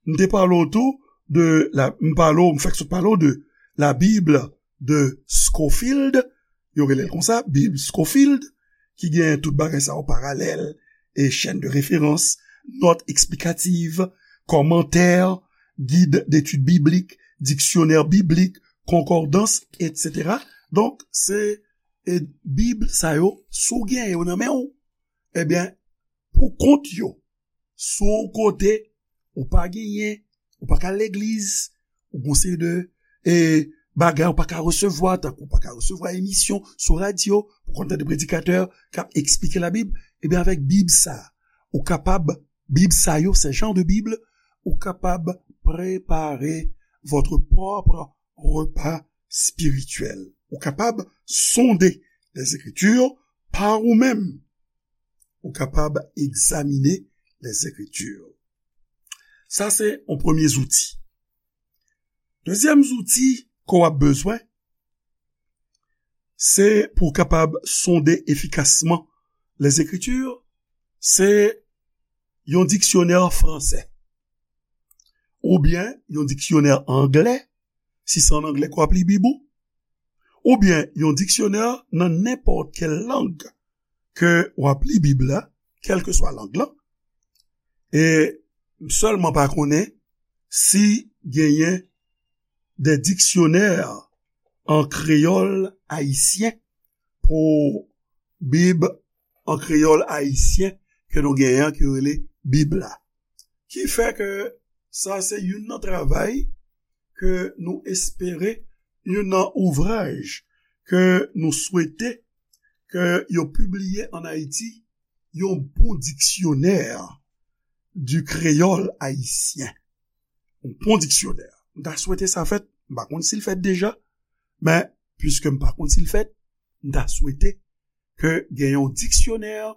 m te pale w tou de la, m pale w, m fèk sot pale w de la Bible de Scofield, yo rele l konsa, Bib Scofield, ki gen tout bagay sa yo, paralèl, e chaîne de référence, nòt eksplikativ, kòmantè, gid detid biblik, diksyonè biblik, konkòdans, etsetera. Donk, se, e, Bib sa yo, si w gen yo nan men w, ebyen, pou kont yo, si w kote ou pa genyen, ou pa ka al legliz, ou gon seri de, e, bagay ou pa ka resevwa, tankou ou pa ka resevwa emisyon sou radyo, pou konn tande predikatè k ap eksplike Labib, ebyen, avèk Bib sa, ou kapab, Bib sa yo, se jan de Bib, ou kapab prepare votre propre repas spirituel. Ou kapab sonde les Écritures pa ou menm. Ou kapab egzamine les Écritures. Sa se yon premye zouti. Dezyèm zouti ke w ap bezwen, se pou w kapab sonde efikasman les Écritures, se yon diksyonè fransè, oubyen yon diksyonè anglè, si se an anglè ke w ap li Bib ou, oubyen yon diksyonè nan nenpòt kèl lang ke w ap li Bib la, kèlkeswa lang lan. E m sèlman pa konnen si genyen de diksyonè an kreyòl ayisyen pou Bib an kreyòl ayisyen ke nou genyen an, ki rele Bib la. Ki fè ke sa se youn nan travay ke nou espere, youn nan ouvraj ke nou swete ke yo pibliye ann Ayiti, yon bon diksyonè du créole haïtien. Yon bon diksyonè. M ta swete sa fèt, m pa konn si l fèt deja, men piske m pa konn si l fèt, m ta swete ke gen yon dictionnaire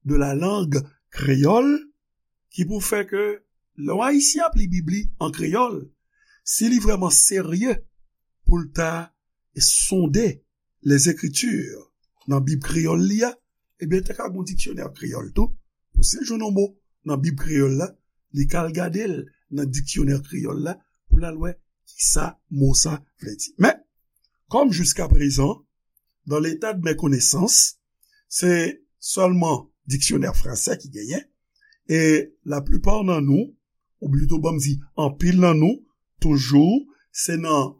de la langue créole ki pou fè ke lè yon Ayisyen ap li Bib li an kreyòl, si li vrèman serye pou l ta sonde les Écritures nan Bib kreyòl li a, ebyen, te ka gon diksyonè kreyòl tou, pou si l jwenn yon mo nan Bib kreyòl la, li ka al gade l nan diksyonè kreyòl la pou l al wè kisa mo sa vle di. Men, comme jusqu'à présent, dans l'état de mes connaissances, se sèlman diksyonè fransè ki genyen, e laplipa nan nou, ou plito ban m di anpil nan nou, toujou, se nan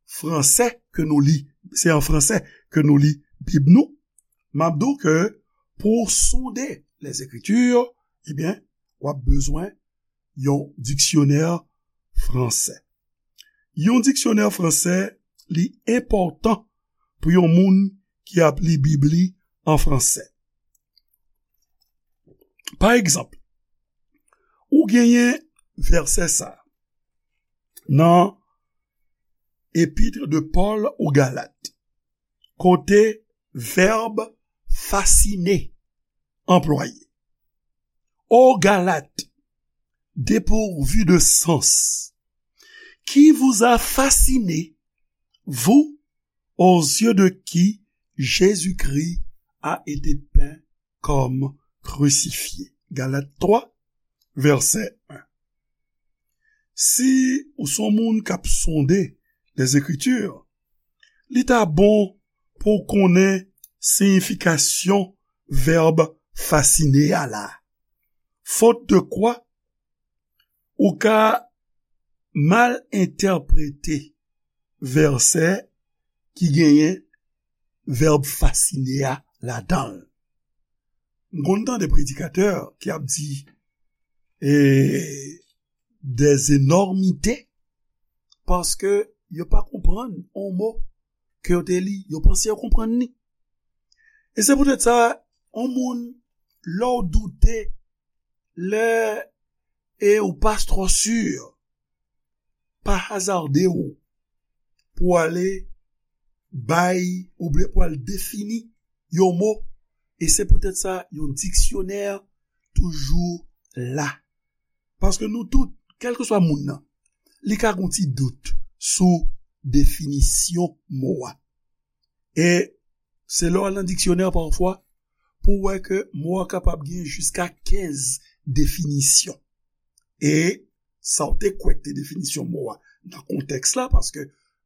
fransè ke nou li, se an fransè ke nou li Bib nou, m ap di w ke pou w sonde les Écritures, ebyen, w ap bezwen yon diksyonè fransè. Yon diksyonè fransè, li enpòtan pou yon moun ki ap li Bib li an fransè. Pa egzanp, ou genyen vèsè sa nan Épître de Paul aux Galates, kote vèb fasciner anplwaye. Ô Galates, dépourvus de sens, qui vous a fasciné, vous, aux yeux de qui Jésus-Christ a été peint comme crucifié? Galat twa, vèsè en. Si ou se yon moun k ap sonde les Écritures, li ta bon pou w konnen siyifikasyon vèb fasciner a la. Faute de quoi, ou ka mal entèprete vèsè ki genyen vèb fasciner a ladan l. M konn tande predikatè ki ap di, e, des énormités, paske yo pa konprann yon mo ke yo te li, yo panse yo konprann li. E se poutèt sa, yon moun, lè w doute, lè e ou pa twò si, pa hazarde w pou ale bay, oubyen pou al defini yon mo, e se poutèt sa yon diksyonè toujou la. Paske nou tout, kèlkeswa moun nan, li ka gen yon ti dout sou definisyon mo a. E se lè w al nan diksyonè pafwa, pou w wè ke mo a kapab gen jiska kenz definisyon. E sa w te kwè k te definisyon mo a nan kontèks la, paske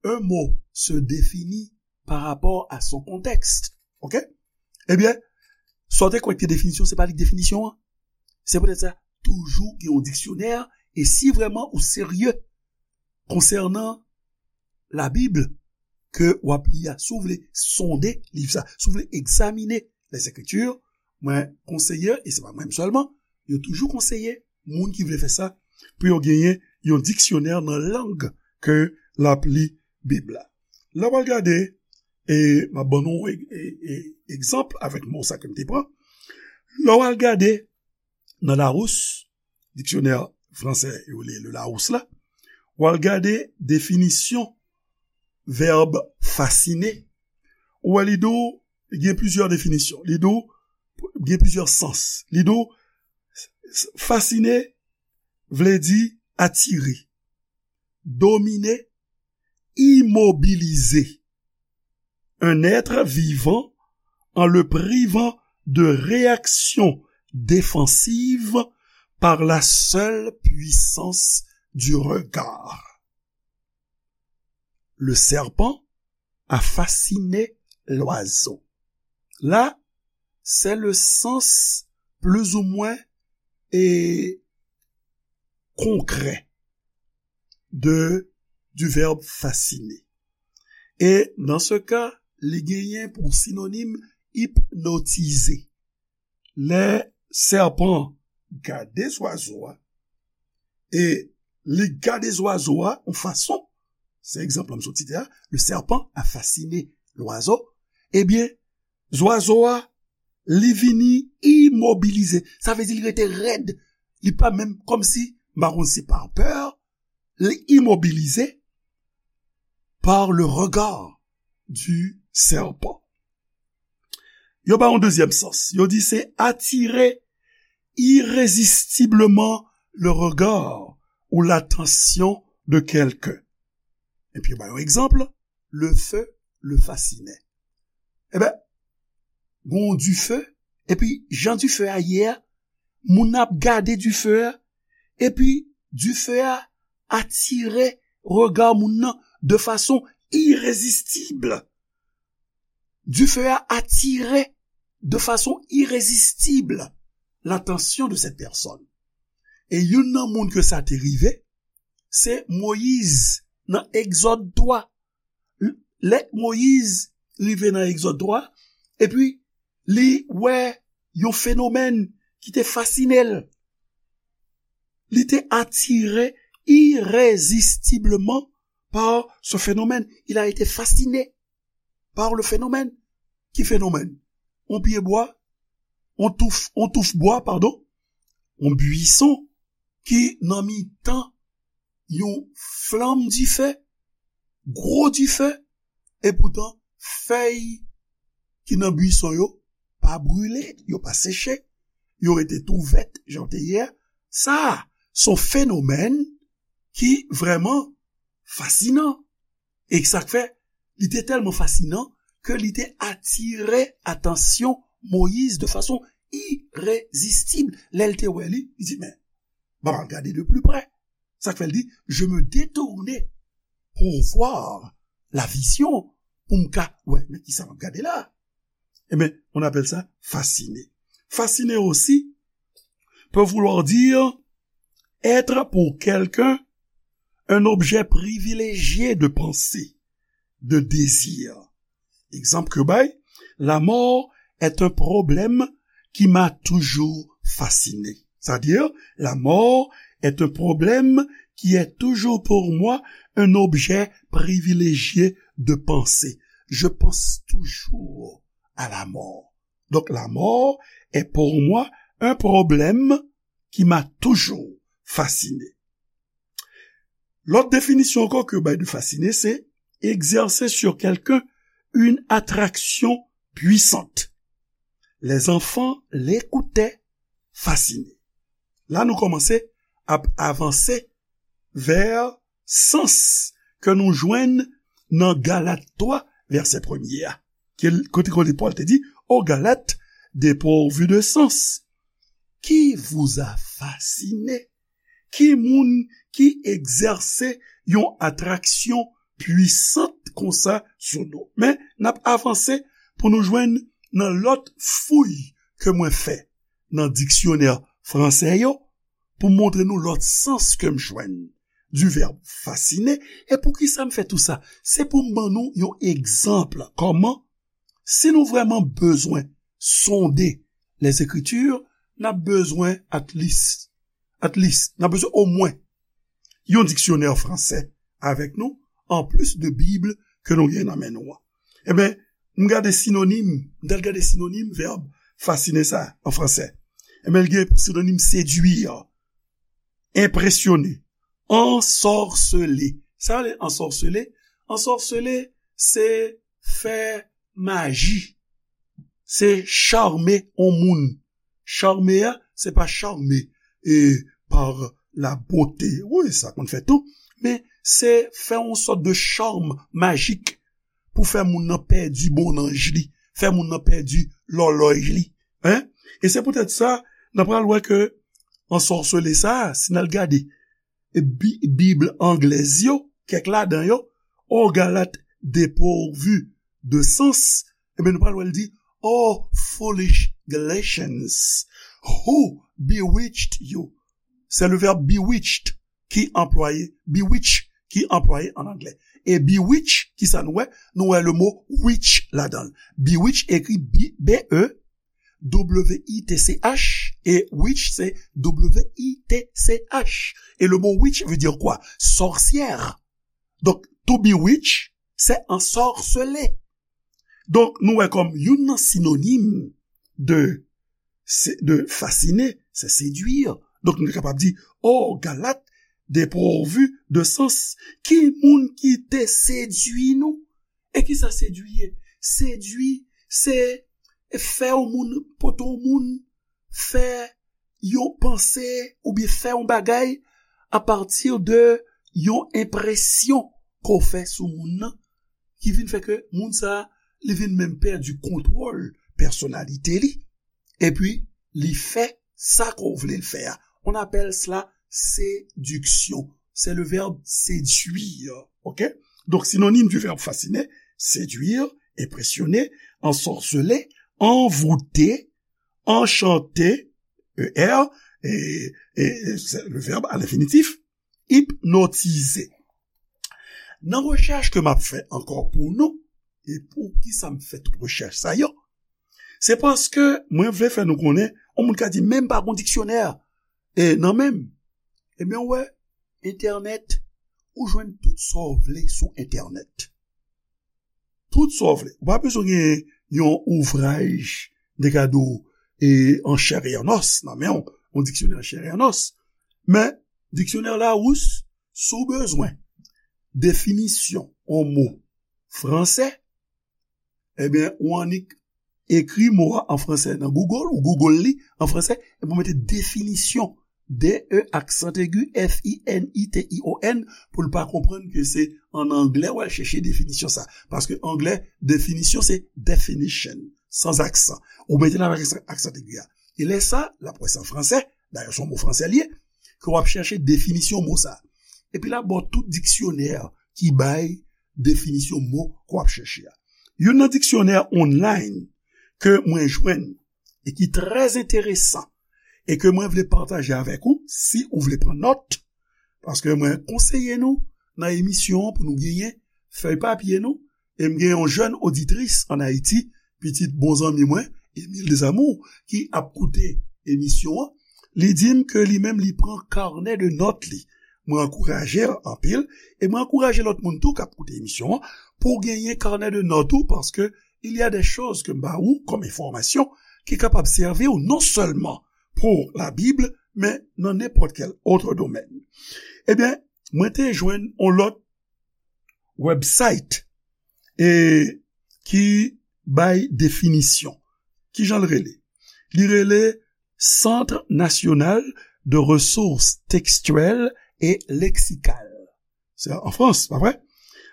un mot se définit par rapport à son contexte. Oke? Ebyen, sa w te kwè k te definisyon, se pa li k definisyon an. Se poutèt sa, toujou gen yon diksyonè, e si vrèman ou serye konsènan Labib ke w ap li a, si w vle sonde liv sa, si w vle egzamine Lèzekriti, mwen konseye, e se pa mwen menm sèlman, yo toujou konseye moun ki vle fè sa, pou yo genyen yon diksyonè nan lang ke l ap li Bib la. Lè w al gade, e m ap ban nou e, e, e, egzanp avèk mo sa ke m te pran. Lè w al gade nan Larousse, diksyonè fransè yo rele le Larousse la, w al gade definisyon vèb fasine, ou wè li di w gen plizyè definisyon. Li di w gen plizyè sans. Li di w fasine vle di atire, domine, imobilize un être vivant en le privant de réaction défensive par la seule puissance du regard. Le serpent a fasciné l'oiseau. La, se le sans plizoumwen e konkrè de, du verbe fasciner. E nan se ka, li genyen pou sinonim ipnotize. Lè sèpan gade zwazo a, e li gade zwazo a yon fason, se egzanp la m sot site a, le serpent a fasciné l'oiseau, ebyen, zwazo a, li vini imobilize. Sa vle di li rete rèd. Li pa menm kòmsi, m pa konn si pa pè, li imobilize par le regard du serpent. Yo ba yon dezyèm sans. Yo di se attirer irrésistiblement le regard ou l'attention de quelqu'un. Epi yo ba yon egzanp, le feu le fascinait. Eben, gon dife, epi jan dife a ye a, moun nan ap gade dife a, epi dife a atire rega moun nan de fason irezistib. Dife a atire de fason irezistib l'attention de cette personne. E youn nan moun ke sa te rive, se Moyiz nan Egzòd twa. Lè Moyiz rive nan Egzòd twa, epi li wè yon fenomèn ki te fasine l. Li te atire irezistibleman par ce phénomène. Il a été fasciné par le phénomène. Ki fenomèn? On pye bwa, on touf, on touf bwa, padon, on bwison ki nan mitan yon flanm dife, gwo dife, epoutan fèy ki nan bwison yo pa brile, yo pa seche, yo rete tou vèt jan yo te ye a. Sa a, se yon fenomèn ki vrèman fasinan. E sa k fè, li te tèlman fasinan ke li te atire atansyon Moyiz de fason irezistib. Lè l te wè li, li di, men, ban m al gade de pli prè. Sa k fè l di, je me détournai pour voir la vision, pou m ka wè, men kisa m ap gade la? Eben, on appelle ça fasciné. Fasciné aussi peut vouloir dire être pour quelqu'un un objet privilégié de pensée, de désir. Egzanp ke bay, la mort est un problème qui m'a toujours fasciné. C'est-à-dire, la mort est un problème qui est toujours pour moi un objet privilégié de pensée. Je pense toujours à la mort. Donc, la mort est pour moi un problème qui m'a toujours fasciné. Lòt definisyon ankò ke yo bay de fasciner, se exercer sur quelqu'un une attraction puissante. Les enfants l'écoutaient fascinés. La nou kòmanse ap avanse vè sans ke nou jwenn nan Galat twa, vèsè premye a. Ke l-, kote, kote Pòl te di, ô Galates dépourvus de sens, qui vous a fasciné? Ki moun ki egzèse yon atraksyon pwisant konsa sou nou? Men, n ap avanse pou nou jwenn nan lòt fouy ke mwen fè nan diksyonè fransè yo, pou montre nou lòt sans ke m jwenn du verbe fasciner. E poukisa m fè tou sa? Se pou m ban nou yon egzanp kòman, si nou vrèman bezwen sonde les Écritures, n ap bezwen at least, at least, n ap bezwen omwen yon diksyonè fransè avèk nou, anplis de Bib ke nou gen nan men nou an. Ebyen, m gade sinonim, m t al gade sinonim vèb fasciner sa an fransè. Ebyen, l gen sinonim séduire, impressionner, ensorceler. Sa vle ensorceler? Ensorceler, se fè maji. Se charme yon moun. Charme a, se pa charme e par la beauté. Wi, sa konn fèt tou. Men se fè yon sòt de charme magique pou fè moun nan pèdi bonnanj li, fè moun nan pèdi lòlòy li. Hein? E se poutèt sa, n a pral wè ke ensorceler sa, si n al gade e Bi-, Bib anglèz yo, kèk ladan yo, ô Galates dépourvus de sens, ebyen, nou pral wè l di, oh foolish Galatians, who bewitched you? Se le verbe bewitched ki anplwaye, bewitch ki anplwaye an anglè. E bewitch, ki sa nou wè? Nou wè le mo witch ladan l. Bewitch ekri B, B E W I T C H, e witch se W I T C H. Et le mot witch veut dire quoi? Sorcière. Donc, to bewitch, c'est ensorceler. Donk, nou wè kòm youn nan sinonim de, se, de fasciner, c'est séduire. Donk, nou kapab di, oh, Galates dépourvus de sens. Ki moun ki te sedui nou? E ki sa sedui ye? Sedui, se fè yon moun, pote yon moun, fè yon panse oubyen fè yon bagay apati de yon enpresyon ke w fè sou moun nan, ki vin fè ke moun sa a, li vin menm pèdi kontwòl pèsonalite li, epi li fè sa ke w vle l fè a. On appelle cela séduction. C'est le verbe séduire. OK? Donc, synonyme du verbe fasciner, séduire, impressionner, ensorceler, envoûter, enchanter, E R, et, et c'est le verbe à l'infinitif, hypnotiser. Nan rechèch ke m ap fè ankò pou nou, e pou ki sa m fè tout rechèch sa yo, se paske mwen vle fè nou konnen, yon moun ka di, men m pa gon diksyonè e nan men m. Ebyen, w wè, entènèt, ou jwenn tout sa w vle sou entènèt. Tout sa w vle. Ou pa bezwen gen yon ouvraj de gade w e an chè e an os nan men w, yon diksyonè an chè e an os. Men, diksyonè Larousse, si w bezwen definisyon yon mo fransè, ebyen, ou annik ekri mo a an fransè nan Google, ou Google li an fransè, epi ou mete definisyon, D E aksan egi, F I N I T I O N, pou l pa konprann ke se an anglè w al chèche definisyon sa. Paske anglè, definisyon se definition, sans accent. Ou mete l avèk aksan, aksan egi a. E lè sa, l ap wè se an fransè, dayè se yon mo fransè li ye, ke w ap chèche definisyon mo sa. Epi l ap ba w tout diksyonè ki bay definisyon mo ke w ap chèche a. Youn nan diksyonè online ke mwen jwenn e ki trè enteresan e ke mwen vle pataje avèk ou, si ou vle pran nòt, paske mwen konseye nou nan emisyon an pou nou genyen fèy papye nou, e m gen yon jèn oditris ann Ayiti, pitit bon zanmi mwen, Emile Desamours, ki ap koute emisyon an, li di m ke li menm li pran kanè de nòt li. Mwen ankouraje l anpil, e mwen ankouraje lòt moun tou k ap koute emisyon an, pou w genyen kanè de nòt ou, paske il y a des choses ke m ba ou kòm enfòmasyon ki kapab sèvi w non sèlman pou la Bible, men nan nenpòt kèl òt domèn. Ebyen, mwen te jwenn yon lòt website e ki bay definisyon. Kijan l rele? Li rele Centre National de Ressources Textuelles et Lexicales. Se an Frans, pa vre?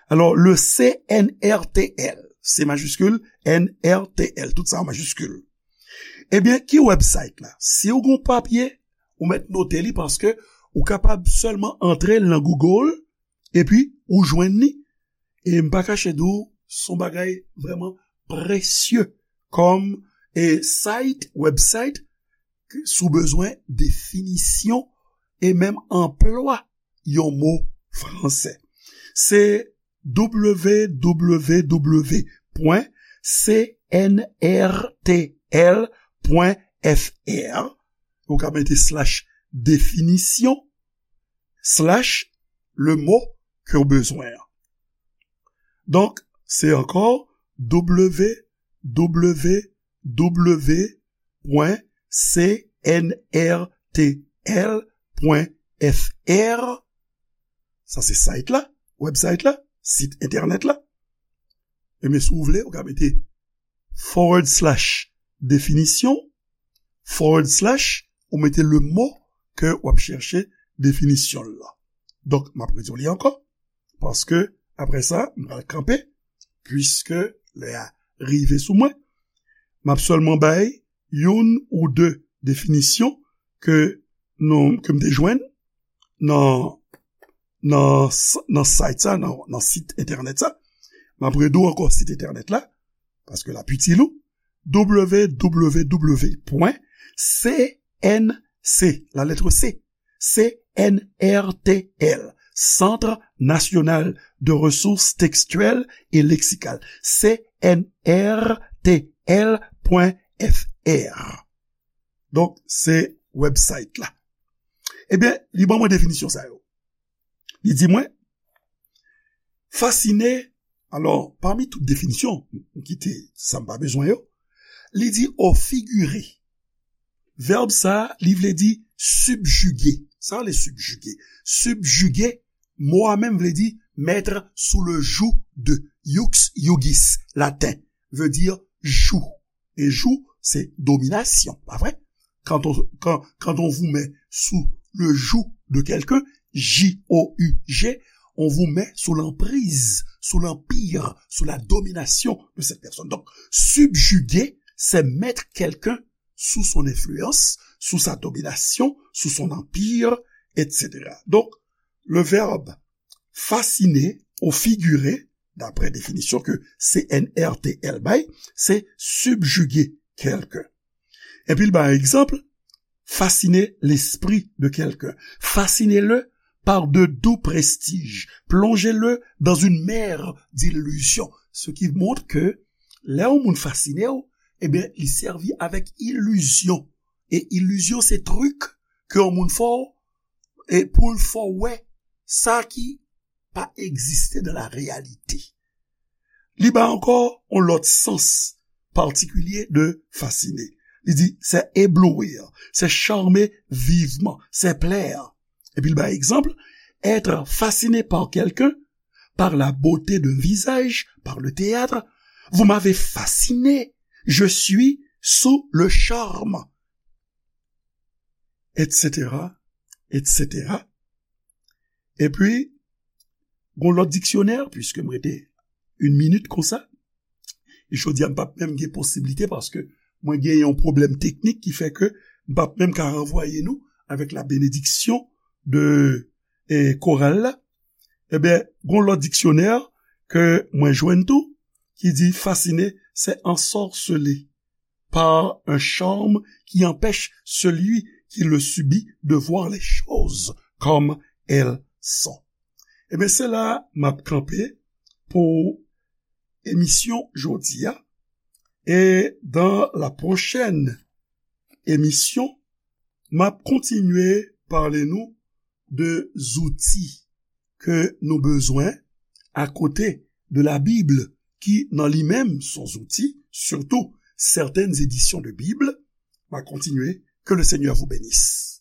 Alò, le C N R T L, C majiskil, N R T L, tout sa an majiskil. Ebyen, ki website la? Si w gen yon papye, ou mèt note li paske ou kapab sèlman antre nan Google epi ou jwenn li. E m pa kache di w, se yon bagay vrèman presye kòm e site, website, si w bezwen definisyon e menm anplwa yon mo fransè. Se w w w pwen C N R T L pwen F R. Ou ka mete slash definisyon, slash le mot ke w bezwen an. Donk, se ankò w w w pwen C N R T L pwen F R. Sa se site la, website la, sit entènèt la. Ebyen, si w vle, ou ka mete forward slash definisyon, forward slash, ou mete le mot ke w ap chèche definisyon l lan. Donk, m ap redi w li ankò, paske apre sa, m pral kanpe, piske lè a rive sou mwen. M ap sèlman bay youn ou de definisyon ke nou, ke m te jwenn nan, nan, nan site sa, nan, nan sit entènèt sa. M ap redi w ankò sit entènèt la, paske l ap itil ou, w w w pwen C N C, la lettre C, C N R T L, Centre National de Ressources Textuelles et Lexicales, C N R T L pwen F R. Donk, se website la. Ebyen, li ban mwen definisyon sa yo. Li di mwen, fasine, alò, pami tout definisyon, m kite sa m pa bezwen yo, li di au figuré. Vèb sa, li vle di subjuguer. Sa vle subjuguer. Subjuguer, mo a menm vle di mettre sous le joug de, iux iugis, laten, veut dire joug. E joug, se dominasyon, pa vre? Quand on, quand, quand on vous met sous le joug de quelqu'un, J O U G, on vous met sous l'emprise, sous l'empire, sous la domination de cette personne. Donc, subjuguer, c'est mettre quelqu'un sous son influence, sous sa domination, sous son empire, et cetera. Donc, le verbe fasciner ou figurer, d'après définition que C N R T L bay, c'est subjuguer quelqu'un. Epi l bay egzanp, fasciner l'esprit de quelqu'un. Fascinez-le par de doux prestiges. Plongez-le dans une mer d'illusions. Ce qui montre que lè yon moun fascine w, ebyen, li sèvi avèk ilizyon. E ilizyon, se trik ke yon moun fè w, e pou l fè w wè sa ki pa egziste dans la réalité. Li bay ankò yon lòt sans patikilye de fasciner. Li di, c'est éblouir, c'est charmer vivement, c'est plaire. Epi l bay egzanp, être fasciné par quelqu'un, par la beauté d'un visage, par le théâtre, vous m'avez fasciné, je suis sous le charme, et cetera, et cetera. Epi, gon lòt diksyonè, piske m rete yon minit konsa, e jodi a m p ap menm gen posiblite paske mwen gen yon pwoblèm teknik ki fè ke m p ap menm ka ranvwaye nou avèk la bénédiction de, eh, koral la. Ebyen, gon lòt diksyonè ke mwen jwenn tou, ki di fasciner, c'est ensorceler par un charme qui empêche celui qui le subit de voir les choses comme elles sont. Ebyen, se la m ap kanpe pou emisyon jodi a. E dans la prochaine émission, m ap kontinye pale nou de zouti ke nou bezwen akote de la Bible, ki nan li menm se yon zouti, surtout certaines éditions de Bible. M ap kontinye. Que le Seigneur vous bénisse.